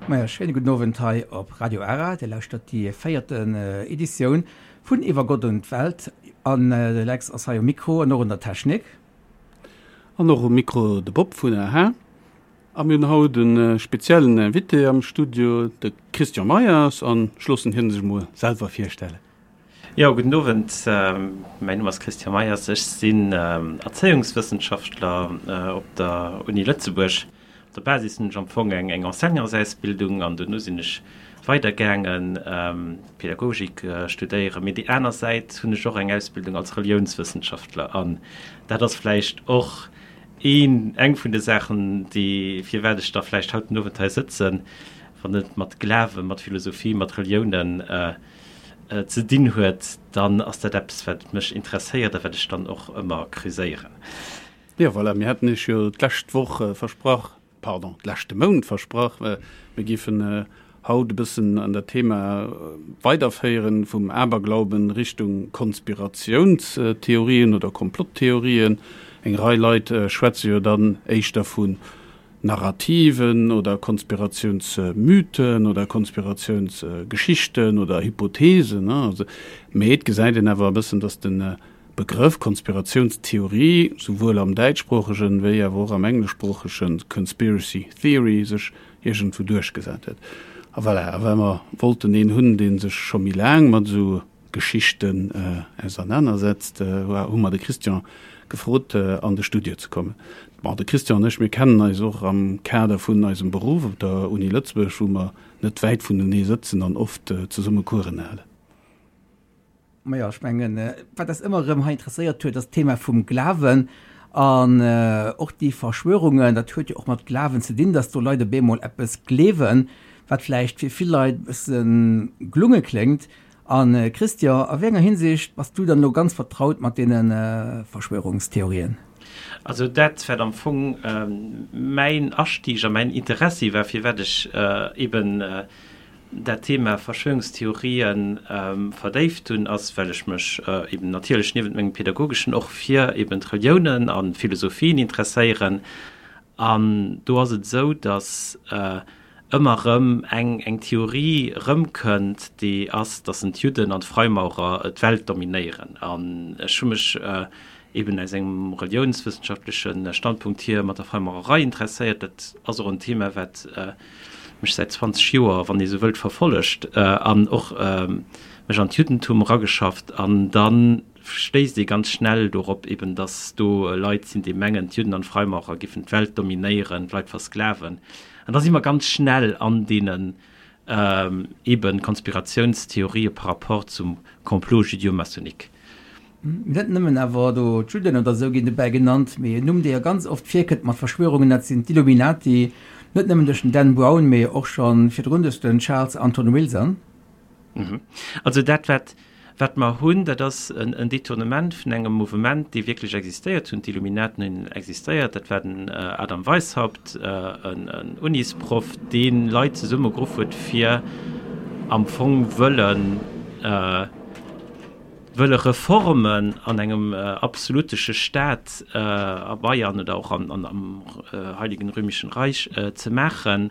Maja, schéine gudden Owend hei op Radio Ara. Dir lauschtert déi véierten Editioun vun Iwwer Gott und d'Welt. An de Lex ass hei um Mikro an och un der Technik. An och um Mikro de Bob vun aha. A mir hunn haut e speziellen Invité am Studio, de Christian Meyers. An ech loossen hien sech emol selwer virstellen. Jo, gudden Owend. Mäin Numm ass Christian Meyers. Ech sinn Erzéiungswëssenschaftler op der Uni Lëtzebuerg. Op der Basis hunn ech am Fong eng Enseignantsausbildung an dono sinn ech weidergaangen Pädagogik studéieren. Mee déi aner Säit hunn ech och eng Ausbildung als Reliounswëssenschaftler an dat ass vläicht och een, eng vun de Saachen, déi, firwat ech da vläicht haut den Owend hei sëtzen, wann et mat Glawen, mat Philosophie, mat Reliounen ze dinn huet, dann ass dat eppes, wat mech interesséiert a wat ech dann och ëmmer creuséieren. Jo, voilà, mir haten Iech jo d'lescht Woch versprach, pardon, d'leschte Mount versprach, mir géifen haut e bëssen an dat Thema weiderféieren, vum Aberglauben Richtung Konspiratiounstheorien oder Komplotttheorien. Eng Rei Leit schwätze jo dann éischter vu Narrativen oder Konspiratiounsmythen oder Konspiratiounsgeschichten oder Hypothesen. Mee et gesäit een awer e bëssen, datt de Begrëff Konspiratiounstheorie souwuel am däitschsproochegen wéi awer och am engleschsproochege Conspiracy Theory sech iergendwou duerchgesat huet. A voilà, a well mer wollten een hunn, dee sech scho méi laang mat esou Geschichten ausernanersetzt, hu mer de Christian gefrot, an de Studio ze kommen. Bon, de Christian an ech, mir kennen eis och am Kader vun eisem Beruff op der Uni Lëtzebuerg, wou mer net wäit vunenee sëtzen an oft zesumme Coursen halen. Majo, ech mengen, wat eis ëmmer erëm hei interesséiert huet, ass d'Thema vum Glawen an och déi Verschwörungen. Dat huet jo och mat Glawen ze dinn, dass do Leit op eemol eppes gleewen, wat vläicht fir vill Leit e bësse gelunge kléngt. A Christian, a wéi enger Hinsicht bass du dann elo ganz vertraut mat deene Verschwörungstheorien? Also dat, wat am Fong mäin Astieg a mäin Interessi war, firwat ech eben dat Thema Verschwörungstheorien verdéift hunn, ass, well ech mech eben natierlech niewent mengem Pädagogeschen och fir eben d'Reliounen a Philosophien interesséieren. An do ass et esou, datt ëmmer erëm eng eng Theorie erëmkënnt, déi ass, datt en d'Judden an d'Freimaurer d'Welt dominéieren. An ech hu mech eben aus engem reliounswëssenschaftleche Standpunkt hier mat der Freimaurerei interesséiert. Dat ass och en Thema, wat mech säit 20 Joer, wann ee sou wëllt, verfollegt an och mech an d'Juddentum erageschafft. An da stéisst ee ganz schnell dorop eben, datt do Leit sinn, déi mengen, d'Judden an d'Freimaurer giffen d'Welt dominéieren, d'Leit versklaven. An da si mer ganz schnell an deenen eben Konspiratiounstheorië par rapport zum Complot judéo-maçonnique. Net nëmmen awer do d'Judden oder esou ginn dobäi genannt, mee en Numm, dee jo ganz oft virkënnt mat Verschwörungen, dat sinn d'Illuminati, net nëmmen duerch den Dan Brown, mee och scho virdrun duerch den Charles Anton Wilson. Also dat, wat Wat mer hunn, dat ass en Détournement vun engem Mouvement, dee wierklech existéiert hunn. D'Illuminaten hunn existéiert. Dat war den Adam Weishaupt, en Unisproff, dee Leit zesummegeruff huet, fir am Fong wëllen, wëlle Reformen an engem absolutesche Staat a Bayern oder och am Heiligen Römischen Reich ze maachen.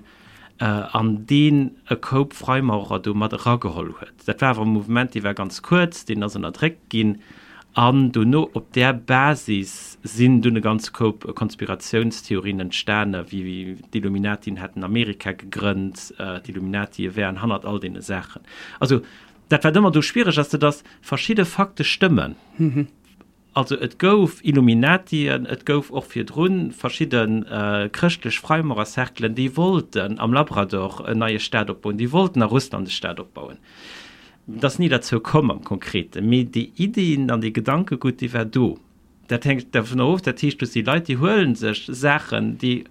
an deen e Koup Freimaurer do mat erageholl huet. Dat war awer e Mouvement, dee war ganz kuerz, deen ass ënnerdréckt ginn, an dono op där Basis sinn dunn e ganze Koup Konspiratiounstheorien entstane wéi d'Illuminatien hätten Amerika gegrënnt, d'Illuminatie wären hannert all deene Saachen. Also dat wat ëmmer do schwiereg ass, dat ass, verschidde Fakte stëmmen. Also et gouf Illuminatien, et gouf och virdru verschidde chrëschtlech Freimaurercerclen, déi wollten am Labrador en neie Staat opbauen, déi wollten a Russland e Staat opbauen. Et ass ni derzou komm am Konkreten, mee déi Iddien an dee Gedankegutt, dee war do. Dat hänkt dovunner of, dat heescht, do si Leit, déi huele sech Saachen, déi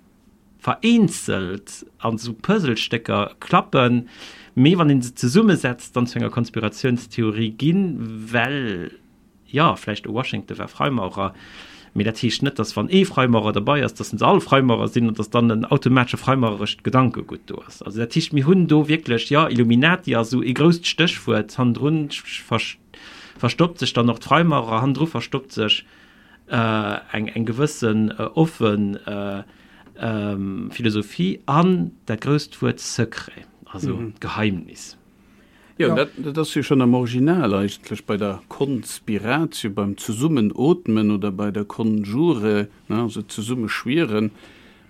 vereenzelt an esou Puzzlestécker klappen, mee wann ee se zesummesetzt, dann zu enger Konspiratiounstheorie ginn, well Jo, vläicht e Washington war Freimaurer, mee dat heescht net, datt wann ee Freimaurer derbei ass, datt se all Freimaurer sinn an datt dann en automatesche freimaurerescht Gedankegutt do ass. Also dat heescht, mir hunn do wierklech, jo, Illuminati ass esou ee grousst Stéchwuert, hannendrun verstoppt sech dann och d'Freimaurer, hannendru verstoppt sech eng eng gewëssen offen. Philosophie an dat grousst Wuert Secret, also Geheimnis. Jo, dat ass jo schonn am Original eigentlech bei der Conspiratio, beim Zesummenootmen oder bei der Conjure, also Zesummeschwieren,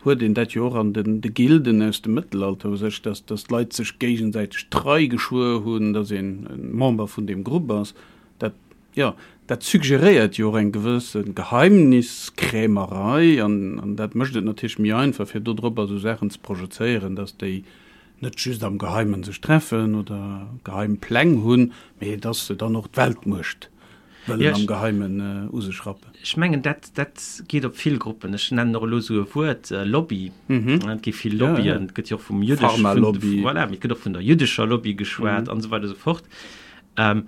huet een dat jo och an de Gilden aus dem Mëttelalter u sech, dass d'Leit sech géigesäiteg d'Trei geschwuer hunn, dass een Member vun deem Grupp ass. Dat, jo, dat suggeréiert jo och eng gewësse Geheimniskrämerei an dat mécht et natierlech méi einfach, fir dodropper esou Saachen ze projezéieren, dass déi net just am Geheimen sech treffen oder geheim Pläng hunn, mee dass se dann och d'Weltmuecht wëllen am Geheimen u sech rappen. Ech mengen, dat, dat geet op vill Gruppen. Ech nennen och elo esou e Wuert, Lobby. Et gi vill Lobbyen. Et gëtt jo och vum jüddesch, Pharmalobby. Voilà, mee et gëtt och vun der jüddescher Lobby geschwat an esou weider esou fort. An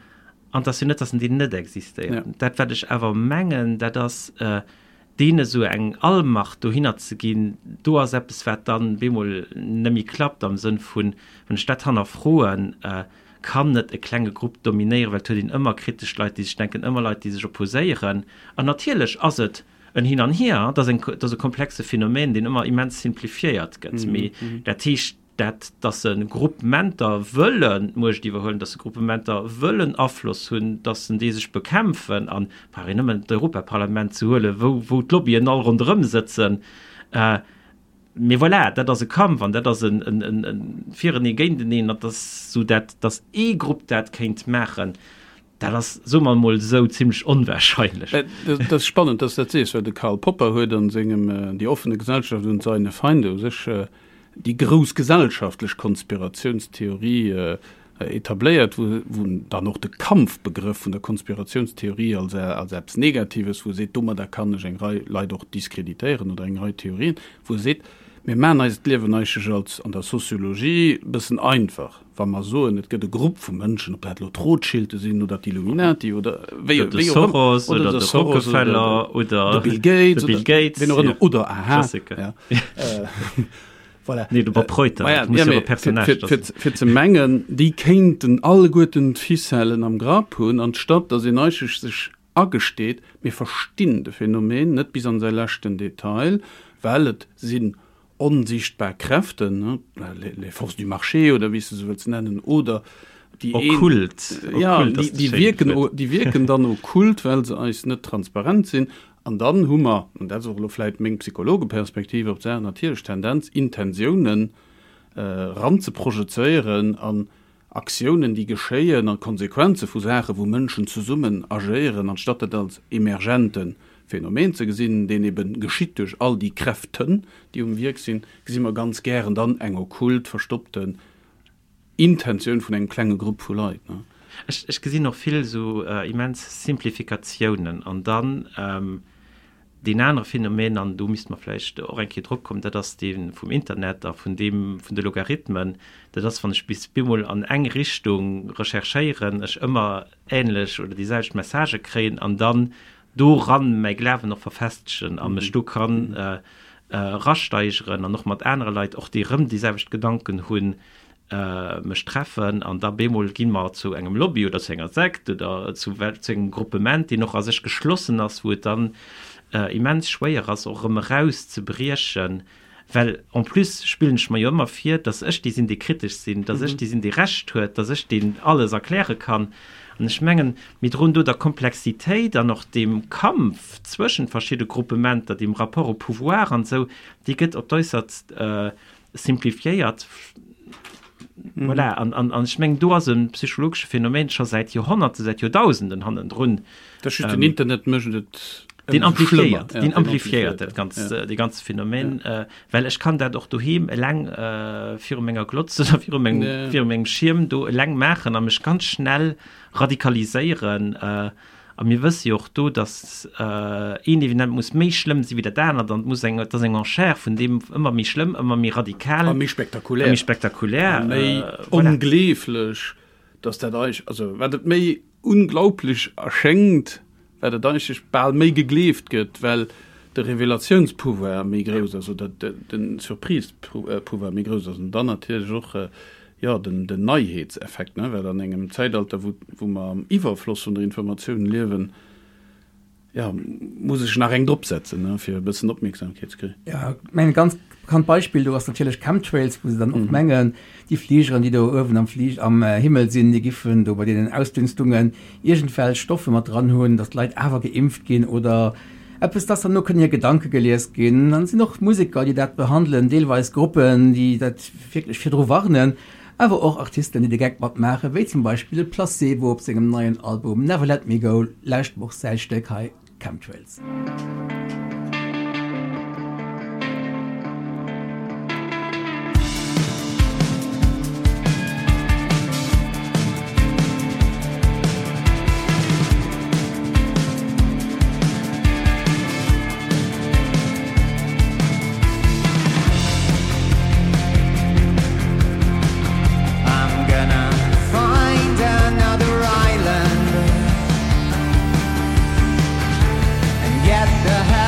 et ass jo net, dass en déi net existéieren. Dat, wat ech awer mengen, dat ass, deene sou eng Allmacht dohinner ze ginn, do ass eppes, wat dann bemol net méi klappt am Sënn vun, wann ech dat hannerfroen, kann net e klenge Grupp dominéieren, well et huet een ëmmer kritesch Leit, déi sech denken, ëmmer Leit, déi sech opposéieren. An natierlech ass et en Hin an Hier, et ass eng, et ass e komplexe Phänomen, deen ëmmer immens simplifiéiert gëtt. Mee dat heescht, dat, dass se Gruppementer wëllen d'Muecht iwwerhuelen, dass se Gruppementer wëllen Afloss hunn, dass se déi sech bekämpfen, an brauch een nëmmen d'Europaparlament ze huelen, wou, wou d'Lobbyen all ronderëm sëtzen. Mee voilà, dat ass e Kampf an dat ass en, en, en, en Firenee géinteneen, an dass esou dat, dass ee Grupp dat kéint maachen, dat ass, soe mer emol esou, zimlech onwahrscheinlech. Dat ass spannend, dass s dat sees, well de Karl Popper huet an sengem Die offene Gesellschaft und seine Feinde u sech déi grouss gesellschaftlech Konspiratiounstheorie etabléiert, wou en dann och de Kampfbegrëff vun der Konspiratiounstheorie als als eppes Negatives, wou e seet, domadder kann ech eng Rei Leit och diskreditéieren oder eng Rei Theorien, wou e seet, mir maachen eis d'Liewen eigentlech als an der Soziologie e bëssen einfach, wa mer soen, et gëtt e Grupp vu Mënschen, ob dat elo d'Rothschilde sinn oder d'Illuminati oder wéi wéi och ëmmer, Soros oder oder de de Soros oder Rockefeller oder de Bill Gates de Bill oder Gates, wien och ëmmer ja. oder aha, Klassiker. ja. Voilà. Nee, de Bob Reuter, Maja, dat muss ja, jo mee e Personnage fir, fir, fir, fir ze mengen, déi kéinten alleguerten d'Ficellen am Grapp hunn, anstatt datt een eigentlech sech agesteet, mir verstinn de Phänomen net bis an säi leschten Detail, well et sinn onsichtbar Kräften, les forces du marché oder wéi s de se wëlls nennen, oder déi een, Okkult, ja, okkult déi, ass dat déi schéint wierken, Wuert. déi wierken dann okkult, well se eis net transparent sinn. An dann hu mer, an dat ass och elo vläit meng Psychologeperspektiv op d'Saach, natierlech d'Tendenz, Intentiounen eranzeprojezéieren an Aktiounen, déi geschéien, a Konsequenze vu Saachen, wou Mënschen zesummen agéieren, anstatt dat als emergente Phänomen ze gesinn, deen ebe geschitt duerch all déi Kräften, déi um Wierk sinn, gesi mer ganz gären dann eng okkult, verstoppten Intentioun vun engem klenge Grupp vu Leit. Ech, ech gesinn och vill esou immens Simplifikatiounen. An dann deen anere Phänomen, an do misste mer vläicht och eng Kéier drop kommen, dat ass dee vum Internet a vun deem vun de Logarithmen. Dat ass, wann ech bis bemol an eng Richtung recherchéieren, ech ëmmer änlech oder déi selwecht Messagë kréien an dann doran mäi Glawen och verfestegen a mech do kann erasteigeren an och mat anere Leit, och déi erëm déi selwecht Gedanken hunn, mech treffen an da bemol gi mer zu engem Lobby oder zu enger Sekt oder zu zu engem Gruppement, deen och a sech geschlossen ass, wou et dann immens schwéier ass, och erëm erauszebriechen. Well en plus spillen ech mer jo ëmmer vir, dass ech dee sinn, dee kritesch sinn, dass ech dee sinn, dee Recht huet, dass ech deen alles erkläre kann. An ech mengen, mir droen do der Komplexitéit an och deem Kampf zwëschent verschidde Gruppementer, deem Rapport au pouvoir an esou, dee gëtt op d'äussertst simplifiéiert. Voilà. An, an, an ech mengen, do ass e psychologesche Phänomen scho säit Joerhonnerte, säit Joerdausenden hannendrun. Dat ass just, den Internet mécht et Deen amplifiéiert, deen amplifiéiert dat ganz, dee ganze Phänomen, well ech kann dat och doheem eleng viru menger Glotz oder viru mengem, viru mengem Schierm do eleng maachen a mech ganz schnell radikaliséieren. A mir wësse jo och do, datt een Evenement muss méi schlëmm si wéi dat anert an et muss eng, et ass eng Enchère vun deem ëmmer méi schlëmm, ëmmer méi radikal. A méi spektakulär. A méi spektakulär. A méi ongleeflech, datt dat eig, also wat et méi Unglaublech erschéngt, wat et eigentlech bal méi gegleeft gëtt, well de Revelatiounspouvoir méi grouss ass oder de Surprise-Pouvoir méi grouss ass. An dann natierlech och, jo, den Neiheetseffekt, ne, well an engem Zäitalter, wou, wou mer am Iwwerfloss vun der Informatioun liewen. Jo, muss ech nach eng drop setzen, ne, fir e bëssen Opmierksamkeet ze kréien. Ja, ech mengen, ganz bekannt Beispill do ass natierlech Chemtrails, wou se dann och mengen, déi Fligeren, déi do uewen am Flig am Himmel sinn, déi giffen do bei deenen Ausdünstungen iergendwelch Stoffe mat dran hunn, datt d'Leit awer geimpft ginn oder eppes, datt dann no kënnen hir Gedanke gelies ginn. Dann sinn och Museker, déi dat behandelen, deelweis Gruppen, déi dat wierklech virdru warnen, awer och Artisten, déi de Geck matmaachen, wéi zum Beispill de Placebo op sengem neien Album Never Let Me Go, lescht Woch säi Stéck hei. Chemtrails. I'm gonna find another island And get the hell.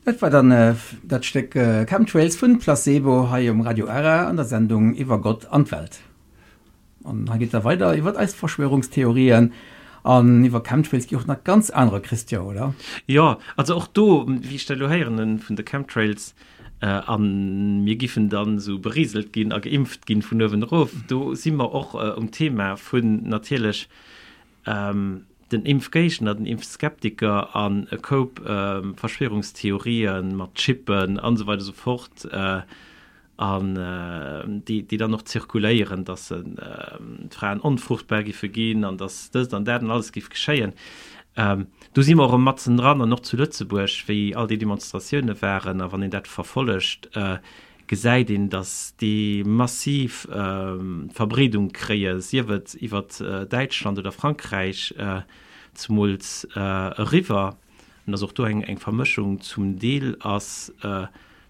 Dat war dann dat Stéck Chemtrails vun Placebo hei um Radio Ara an der Sendung iwwer Gott an d'Welt. An hei geet da weider iwwer eis Verschwörungstheorien an iwwer Chemtrails gi och nach ganz anerer, Christian, oder? Jo, also och do, wéi ech dat elo héieren hunn vun de Chemtrails, a mir giffen dann esou beriselt ginn a geimpft ginn vun uewen erof, do si mer och um Thema vun natierlech den Impfgéigner, den Impfskeptiker an e Koup Verschwörungstheorien mat Chippen an esou weider esou fort, an déi dann och zirkuléieren, dass d'Fraen onfruchtbar giffe ginn an dass dëst an dat an alles giff geschéien. Do si mer och erëm matzen dran an och zu Lëtzebuerg, wéi all déi Demonstratioune waren a wann een dat verfollegt, gesäit een, dass déi massiv Verbreedung kréie, sief et iwwer Däitschland oder Frankräich zemools eriwwer. An dass och do eng Vermëschung zum Deel ass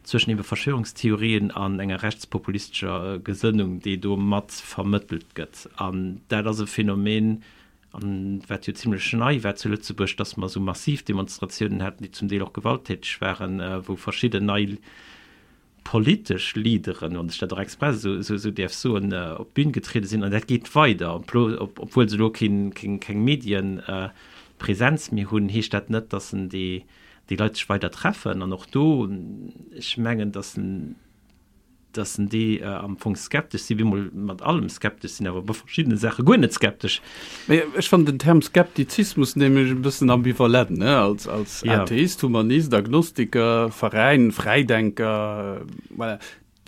zwëschen ebe Verschwörungstheorien an enger rechtspopulistescher Gesënnung, déi do mat vermëttelt gëtt. An dat ass e Phänomen, an wat jo zimlech nei war zu Lëtzebuerg, dass mer esou massiv Demonstratiounen haten, déi zum Deel och gewalttäteg waren, wou verschidden nei politesch Leaderen, wann ech dat och express esou däerf soen, op d'Bün getriede sinn. An dat geet weider, obwuel se elo keng Medienpresenz méi hunn, heescht dat net, datt en déi Leit sech weider treffen. An och do, ech mengen, datt en datt en déi am Fong skeptesch sinn, bemol mat allem skeptesch sinn, awer bei verschiddene Saache guer net skeptesch. Mee ech fannen den Term Skeptizismus nämlech e bëssen ambivalent, ne? Als, als ja. Atheist, Humanist, Agnostiker, Veräin, Fräidenker, voilà.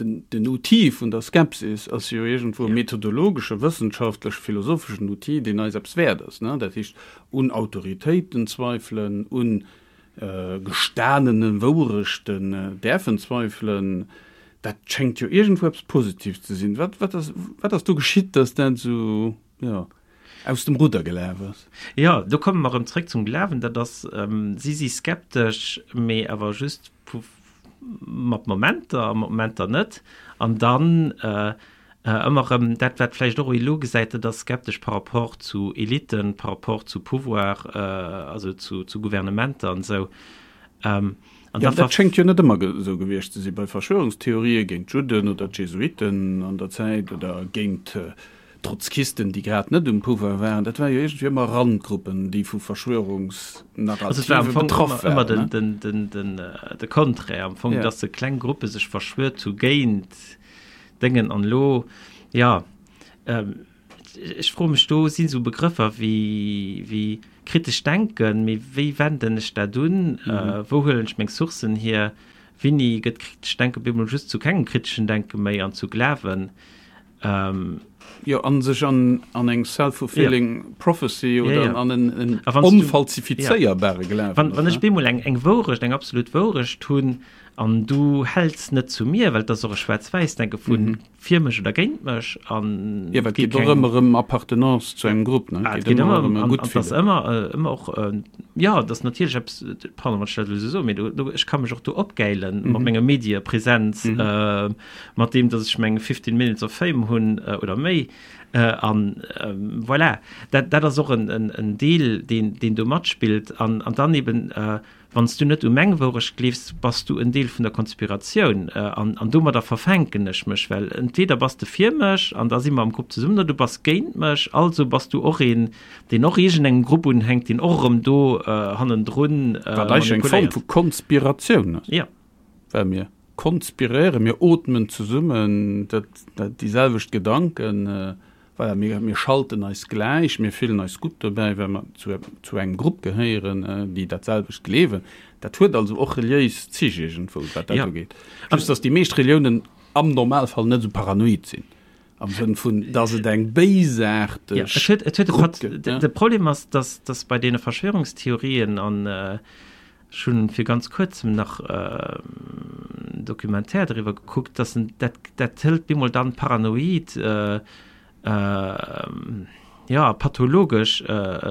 Den, den Outil vun der Skepsis ass jo iergendwou e methodologesche, wëssenschaftleche, philosopheschen Outil, deen eis eppes wäert ass, ne? Dat heescht, un Autoritéiten zweifelen, un gestanene Wourechten däerfen zweifelen, dat schéngt jo iergendwou eppes Positives ze sinn. Wat, wat ass, wat ass do geschitt, datt dat esou, jo, aus dem Rudder gelaf ass? Jo, do komme mer erëm zréck zum Glawen. Dat ass, si si skeptesch, mee awer just mat Momenter a mat Momenter net. An dann ëmmer erëm dat, wat vläicht och elo gesäit, dat ass skeptesch par rapport zu Eliten, par rapport zu Pouvoir, also zu Gouvernementer an esou. An da dat schéngt jo net ëmmer esou gewiescht ze si bei Verschwörungstheorië géint d'Judden oder d'Jesuiten an der Zäit oder géint Trotzkisten, déi grad net um Pouvoir waren. Dat war jo iergendwéi ëmmer Randgruppen, déi vu Verschwörungsnarrative betraff waren. Also et war am Fong ëmmer de Contraire am Fong, datt se kleng Gruppe sech verschwuert hu géint Déngen. An elo, jo, ech froe mech, do sinn esou Begrëffer wéi kritesch denken, mee wéi wenden ech dat un? Wou huelen ech meng Sourcen hier? Wéini gëtt kritescht Denken op eemol just zu kengem kriteschen Denke méi an zu Glawen? Jo, an sech an an eng self-fulfilling prophecy oder an en en onfalsifizéierbare Glawen. Wann wann ech bemol eng eng Wourecht, eng absolut Wourecht hunn an du häls net zu mir, well et ass och e Schwaarz-Wäiss-Denke vu fir mech oder géint mech an. Jo, well et geet och ëmmer ëm Appartenance zu engem Grupp, ne? Et geet ëmmer ëm e gutt Fillen. Et ass ëmmer ëmmer och, jo, et ass natierlech eppes, pardon, wann ech dat elo esou soen, mee do do ech ka mech och do opgäilen mat menger Mediepresenz, mat deem dass ech meng 15 minutes of fame hunn oder méi an voilà, dat dat ass och en en Deel deen deen do matspillt an an dann eben wann s du net u meng Wourecht gleefs, bass du en Deel vun der Konspiratioun an an domadder verfänken ech mech, well entweder bass de fir mech an da si mer am Grupp zesummen oder du bass géint mech, also bass du och een deen och iergendengem Grupp unhänkt, deen och erëm do hannendrun Wat eigentlech eng Form vu Konspiratioun ass. Jo. Well mir konspiréieren, mir ootmen zesummen dat, dat, déi selwecht Gedanken, voilà, mir, mir schalten eis gläich, mir fillen eis gutt dobäi, well mer zu, zu engem Grupp gehéieren, déi dat selwecht gleewen. Dat huet also och reliéis Zich iergendwou, wat dat ugeet. Just dass déi meescht Reliounen am Normalfall net esou paranoid sinn, am Sënn vun, dass et eng béisaarteg Grupp gëtt. De Problem ass, dass, dass bei deene Verschwörungstheorien an, Ech hunn fir ganz kuerzem nach en Documentaire doriwwer gekuckt, dass en dat dat hëlt bemol dann paranoid, jo pathologesch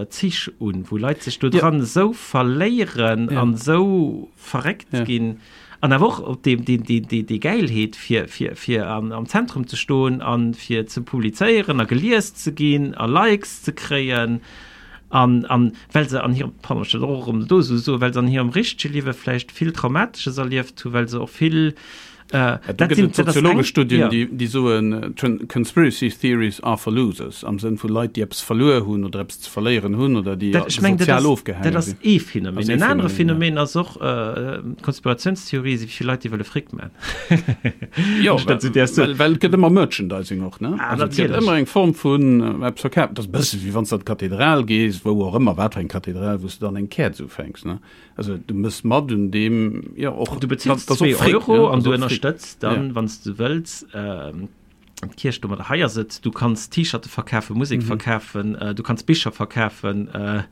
Zich un, wou Leit sech do dran esou verléieren an esou verréckt ginn an awer och op déi déi déi déi Gäilheet fir fir fir am Zentrum ze stoen an fir ze publizéieren a gelies ze ginn a Likes ze kréien. An, an well se an hirem, pardon, ech dat och erëm do esou soen, well se an hirem richtege Liewe vläicht vill Traumatesches erlieft hunn, well se och vill, äh, Ja, do gëtt et soziologesch Studien, déi, déi soen, Conspiracy theories are for losers, am Sënn vu Leit, déi eppes verluer hunn oder eppes ze verléieren hunn oder déi Dat, ech mengen, dat sozial ass, ofgehaange dat ass sinn. ee Phänomen. Ass ee En anere Phänomen, ja. Phänomen ass och, äh, Konspiratiounstheorie si fir Leit, déi wëlle Fric man. Jo, well, well, well et gëtt ëmmer Merchandising och, ne? Ah, also, et gëtt ëmmer eng Form vun äh, eppes verkaaft. Dat ass e bësse wéi wann s de an d'Kathedral gees, wou och ëmmer, wat fir eng Kathedral, wou s de dann eng Käerz ufänks, ne? Also du mëss mat un deem, jo, och. Du bezills 2 Euro an du ënnerstëtz dann, ja. wann s du wëlls, äh, d'Kierch domadder. Hei ass et, du kanns T-Shirte verkafen, Musek mhm. verkafen, äh, du kanns Bicher verkafen, äh,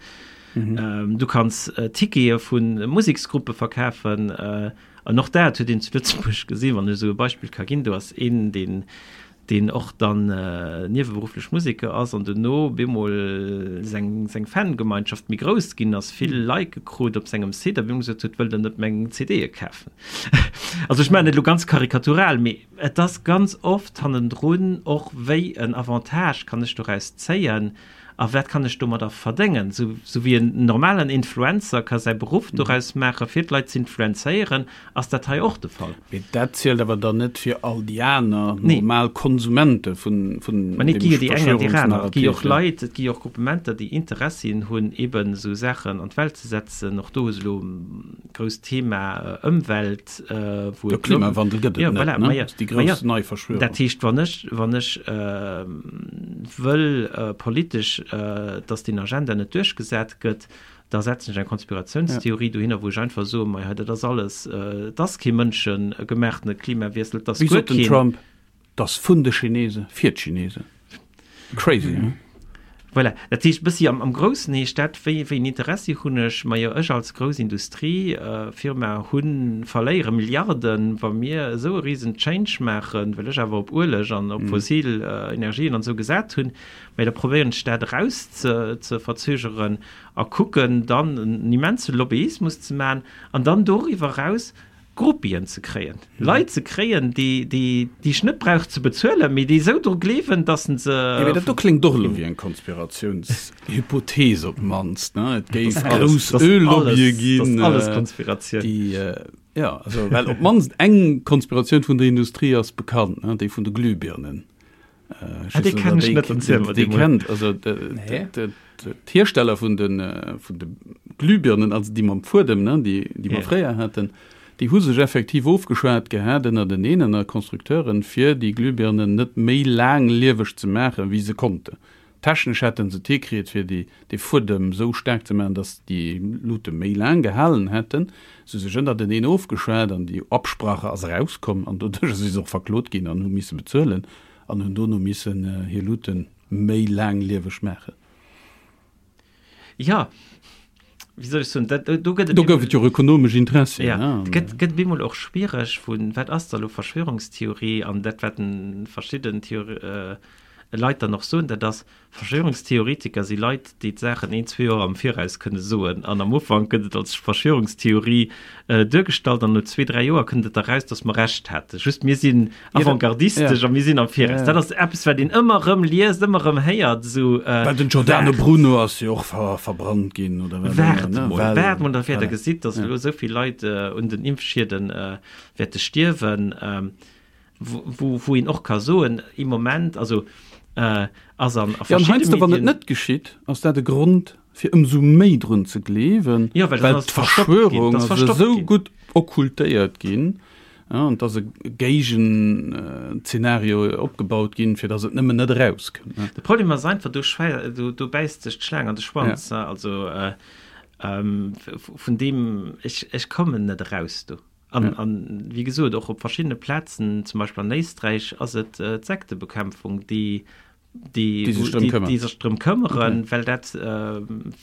mhm. ähm, du kanns äh, Tickete vun Museksgruppe verkafen. Äh, An och dat huet een zu Lëtzebuerg gesinn, wann ech esou e Beispill ka ginn, do ass een, deen, deen och dann nieweberufflech Museker ass an duerno bemol seng, seng Fangemeinschaft méi grouss ginn ass, vill Like krut op sengem Site a bemol gesot huet, wëllt der net meng CDe kafen? Also ech maachen et elo ganz karikatural, mee et ass ganz oft hannendrun och, wéi en Avantage kann ech doraus zéien? A wat kann ech domadder verdéngen? Sou, sou wéi en normalen Influencer ka säi Beruff doraus maachen, fir d'Leit z'influenzéieren, ass dat hei och de Fall. Mee dat zielt awer dann net fir all déi aner normal Konsumente vun, vun Mä nee, et gi jo déi eng an déi aner. Et gi jo och Leit, et gi jo och Gruppementer, déi Interessien hunn, eeben esou Saachen an d'Welt ze setzen. Och do hues elo grousst Thema Ëmwelt, wou et. De Klimawandel gëtt et net, ne? Dat ass déi grouss nei Verschwörung. Dat heescht, wann ech, wann ech wëll politesch, datt deen Agenda net duerchgesat gëtt, da setzen ech eng Konspiratiounstheorie dohinner, wou ech einfach soen, Mei hei, dat ass alles, et ass kee mënschegemaachtene Klimawiessel, et ass guer keen. Wéi sot den Trump? 't ass vun de Chinese fir d'Chinesen. Crazy, he? Voilà, dat heescht, bëssi am, am Groussen heescht dat, wéi, wéi en Interessi hunn ech? Majo, ech als grouss Industriefirma hunn, verléiere Milliarden, wa mir esou e risen Change maachen, well ech awer op Ueleg an op fossil Energien an esou gesat hunn. Mä da probéieren ech dat eraus ze, ze verzögeren a kucken dann en immense Lobbyismus ze maachen an dann doriwwer eraus Groupien ze kréien, Leit ze kréien, déi, déi, déi ech net brauch ze bezuelen, mee déi esou dru gleewen, dass se. Jo, mee dat do kléngt och elo wéi eng Konspiratiounshypothees op d'mannst, ne? Et géif grouss Öl-Lobbye ginn. Dat ass alles Konspiratioun. Déi, jo, also, well op d'mannst eng Konspiratioun vun der Industrie ass bekannt, ne? Déi vun de Glühbirnen. Ah, déi kennen ech net, erziel mer déi mol. Kennt, also d'Hiersteller vun de vun de Glühbirnen, also déi mam Fuedem, ne, déi déi mer fréier haten, déi hu sech effektiv ofgeschwat gehat ënnerteneen, ënner Constructeuren, fir déi Glühbirnen net méi laanglieweg ze maachen, wéi se konnten. Technesch hätte se et hikritt, fir déi dee Fuedem esou staark ze maachen, datt déi Luute méi laang gehalen hätten. Se hu sech ënnerteneen ofgeschwat an déi Absprache ass erauskomm an doduercher si se och verklot ginn an hu misse bezuelen an hunn dono missen hir Luute méi laanglieweg maachen. Jo, wéi soll ech soen, dat, do gëtt et. Do gouf et jo och ökonomesch Interessien. Ja, et gëtt, gëtt bemol och schwiereg vu wat ass da lo Verschwörungstheorie an dat wat verschidden Theor Leit dann och soen, dat ass, Verschwörungstheoretiker si Leit, déi d'Saachen een, zwee Joer am Viraus kënne soen. An am Ufank gëtt et als Verschwörungstheorie duergestallt an no zwee, dräi Joer kënnt et da raus, datt mer Recht haten. Just mir sinn avantgardistesch a mir sinn am Viraus. Dat ass eppes, wat een ëmmer erëm liest, ëmmer erëm héiert. Esou, Well den Giordano Bruno ass jo och verbrannt ginn, oder wat? Waart mol, waart mol, da wäert Der gesitt, datt elo esou vill Leit un den Impfschieden wäerte stierwen. Wou, wou een och ka soen, im Moment, also ass an a verschiddene Medien. Ja, an heiansdo, wann et net geschitt, ass dat e Grond, fir ëmsou méi drun ze gleewen, ja, well, well d'Verschwörung ass esou gutt okkultéiert ginn, ja, an et ass e Géigenzeenario opgebaut ginn, fir datt et nëmmen net erauskënnt. De Problem ass einfach, do, do, do bäisst sech d'Schlaang an de Schwanz. Ja. Also äh, ähm, vun deem, ech, ech kommen net eraus do. An, an wéi gesot, och op verschiddene Plazen, zum Beispill an Éisträich, ass et d'Sektebekämpfung, déi, déi, déi sech drëm këmmert, déi sech drëm këmmeren, okay. well dat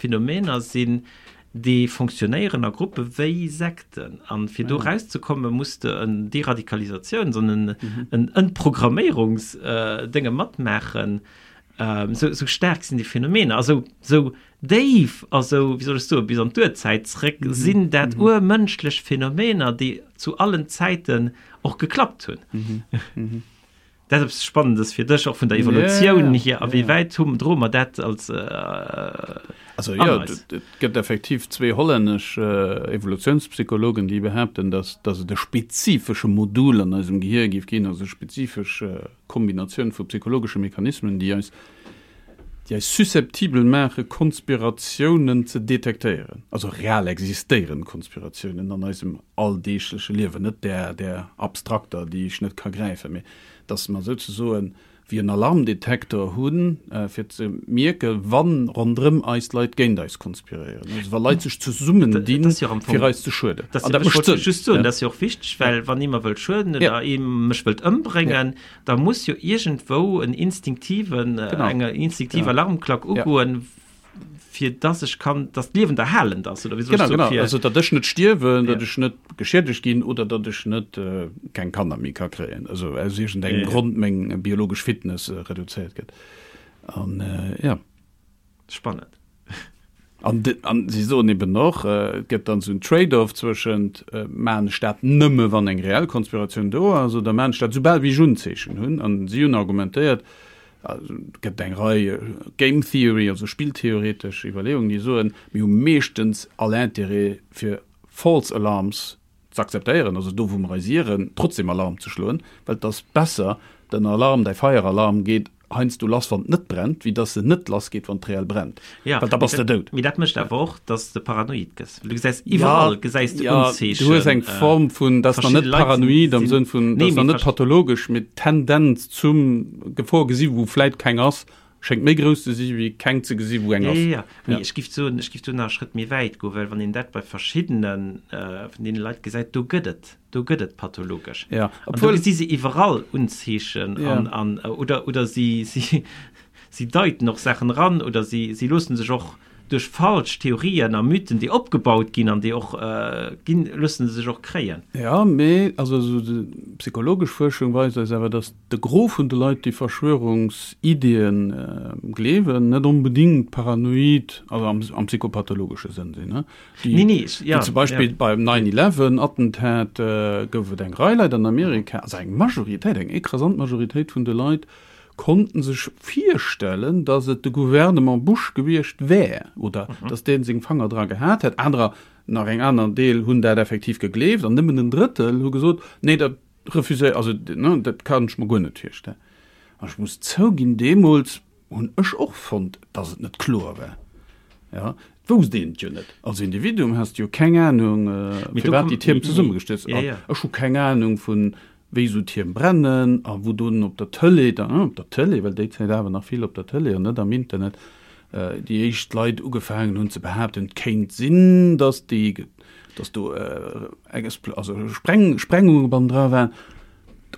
Phänomener sinn, déi fonctionnéieren a Gruppe wéi Sekten. An fir do erauszekommen, muss de en Deradikalisatiouns an en, en Entprogrammierungsdénge matmaachen. Sou, sou staark sinn déi Phänomener a sou, sou déif a sou, wéi soll ech soen, bis an d'Urzäit zréck sinn dat urmënschlech Phänomener, déi zu allen Zäiten och geklappt hunn. Dat ass eppes Spannendes fir dech, och vun der Evolutioun hier. A wéi wäit hu droe mer dat als Also jo, et gëtt effektiv zwee hollännesch Evolutiounspsychologen, déi behaapten, datt datt et e spezifesche Modul an eisem Gehier géif ginn, also e spezifesch Kombinatioun vu psychologesche Mechanismen, déi eis déi eis susceptibel maache Konspiratiounen ze detektéieren, also real existéierend Konspiratiounen an eisem alldeegleche Liewen, net där där abstrakter, déi ech net ka gräifen, mee datt mer souzesoen wéi en Alarmdetektor hunn, fir ze mierke wa ronderëm eis Leit géint eis konspiréieren, also wa Leit sech zesummendinn, fir eis ze schueden. An dat mécht Sënn. Just soen, dat ass jo och wichteg, well wann ee mer wëllt schueden oder ee mech wëllt ëmbréngen, da muss jo iergendwou en instinktiven, eng instinktiv Alarmklack ugoen, fir dass ech kann, dass d'Liewen erhalend ass, oder wéi soll ech soen? Genau, genau, also datt ech net stierwen, datt ech net geschiedegt ginn oder datt ech net keng Kanner méi ka kréien, also aus iergendengem Grond meng biologesch Fitness reduzéiert gëtt. An jo. Spannend. An an si soen eben och, et gëtt dann esou en Trade-off zwëschent, maachen ech dat nëmme wann eng reell Konspiratioun do ass oder maachen ech dat soubal wéi ech Unzeechen hunn? An si hunn argumentéiert, et gëtt eng Rei Game Theory, also spilltheoretesch Iwwerleeungen, déi soen, mir hu meeschtens all Intérêt fir false alarms ze akzeptéieren, also do wou mer eis ieren, trotzdem Alarm ze schloen, well et ass besser, den Alarm, däi Feieralarm geet heiansdo lass wann et net brennt, wéi dass en net lass geet wann et reell brennt, well da bass de dout. Mee dat mécht awer och, dass de paranoid gëss, well du gesäis iwwerall gesäis de Unzeechen. Du hues eng Form vun, dat ass nach net paranoid am Sënn vun, dat ass nach net pathologesch, mee d'Tendenz zum Gefor gesi wou vläit keng ass, Schéngt méi grouss ze si wéi keng ze gesi wou eng ass. Jo, jo, jo. Mee ech giff soen, ech giff do nach e Schrëtt méi wäit goen, well wann een dat bei verschiddene vun deene Leit gesäit, do gëtt et, do gëtt et pathologesch. Jo, An do gesi se iwwerall Unzeechen an, an, oder, oder si, si, si deiten och Saachen eran oder si, si loosse sech och duerch falsch Theorien a Mythen, déi opgebaut ginn an déi och ginn, loosse se sech och kréien. Jo, mee also esou déi psychologesch Fuerschung weist eis awer, datt de Gros vun de Leit, déi Verschwörungsiddien gleewen, net onbedingt paranoid, also am, am psychopathologesche Sënn sinn. Déi, nee, nee, ja, déi zum Beispill ja. beim 9-11-Attentat gouf et eng Rei Leit an Amerika, also eng Majoritéit, eng écrasant Majoritéit vun de Leit, konnten sech virstellen, datt et de Gouvernement Bush gewiescht wär oder datt dee seng Fanger dra gehat hätt. Anerer, nach eng aner Deel hunn dat effektiv gegleeft an nëmmen en Drëttel hu gesot, nee, dat refuséiert, also dat kann ech mer guer net virstellen. An ech muss zouginn, deemools hunn ech och fonnt, datt et net kloer war. Jo, et wousst een et jo net. Als Individuum has de jo keng Anung, firwat déi Tierm zesummegestallt sinn. Ech hu keng Anung vun wéi esou Tierm brennen a wou dunn op der Tëlee, dann op der Tëlee, well déi Zäit awer nach vill op der Tëlee an net am Internet, déi éischt Leit ugefaangen hunn ze behaapten, et kéint sinn, datt déi, datt do also Spreng, Sprengunge bannendra waren.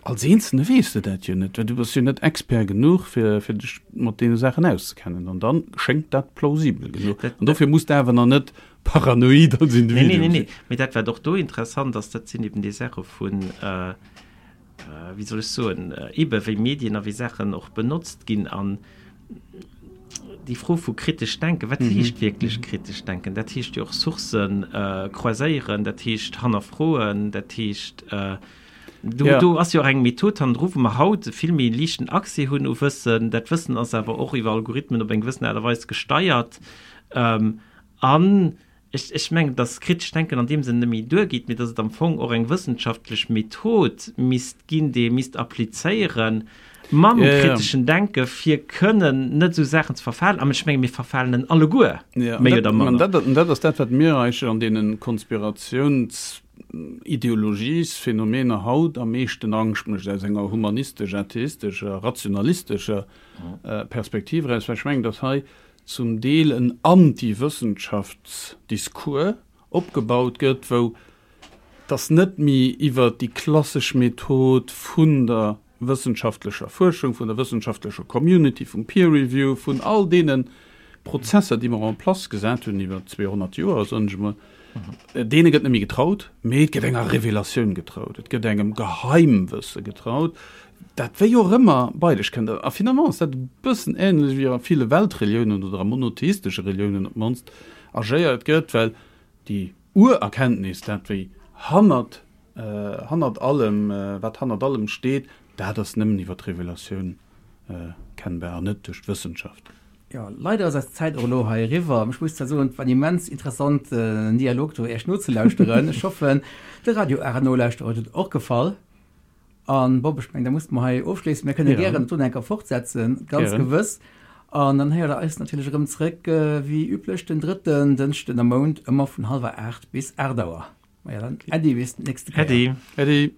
Als Eenzelne weess de dat jo net, well du bass jo net Expert genuch, fir, fir dech mat deene Saachen auszekennen. An dann schéngt dat plausibel genuch. An dofir muss de awer nach net paranoid als Individuum sinn. Nee, nee, nee. Mee dat, wat och do interessant ass, dat sinn eben déi Saache vun, wéi soll ech soen, ebe wéi Medien a wéi Saachen och benotzt ginn an déi Fro vu kritesch denken, wat heescht wierklech kritesch denken? Dat heescht jo och Sourcen croiséieren, dat heescht hannerfroen, dat heescht, do, do ass jo och eng Method hannendru, wou mer haut e vill méi liichten Accès hunn u Wëssen. Dat Wëssen ass awer och iwwer Algorithmen op eng gewëssen Aart a Weis gesteiert. An ech, ech mengen, dass kritescht Denken an deem Sënn net méi duergeet, mee dass et am Fong och eng wëssenschaftlech Method misst ginn, déi ee misst applizéiere mam kriteschen Denken, fir kënnen net esou Saachen ze verfalen. An ech menge mir verfalen en alleguer, méi oder manner. An dat ass dat, wat mir eigentlech an deene Konspiratiouns-Ideologies-Phänomener haut am meeschten Angscht mécht, aus enger humanistesch-atheistescher, rationalistescher Perspektiv eraus, well ech mengen, dass hei zum Deel en Anti-Wëssenschaftsdiscours opgebaut gëtt, wou dass net méi iwwert déi klassesch Method vun der wëssenschaftlecher Fuerschung, vun der wëssenschaftlecher Community, vum Peer Review, vun all deene Prozesser, déi mer en place gesat hunn iwwer 200 Joer, soen ech emol, deene gëtt net méi getraut, mee et gëtt enger Revelatioun getraut, et gëtt engem Geheimwësse getraut, dat wéi och ëmmer bei dech kënnt. A finalement ass dat e bëssen änlech wéi a ville Weltreliounen oder a monotheistesche Reliounen op d'mannst agéiert gëtt, well déi Urerkenntnis, dat wéi hannert, hannert allem, wat hannert allem steet, Dat ass nëmmen iwwer d'Revelatioun kennbar an net duerch d'Wëssenschaft. Jo, leider ass eis Zäit och elo hei eriwwer. Ech muss zwar soen, et war en immens interessanten Dialog do Iech nozelauschteren. Ech hoffen, de Radio Ara Nolauschterer huet et och gefall. An Bob, ech mengen, da musse mer hei ofschléissen. Mir kënne gären et do nach eng Kéier fortsetzen, ganz gewëss. An dann héiert Der eis natierlech erëm zréck, wéi üblech, den drëtten Dënschden am Mount, ëmmer vun hallwer 8 bis 8 Auer. Maja dann, Äddi, bis d'nächste Kéier. Äddi. Äddi.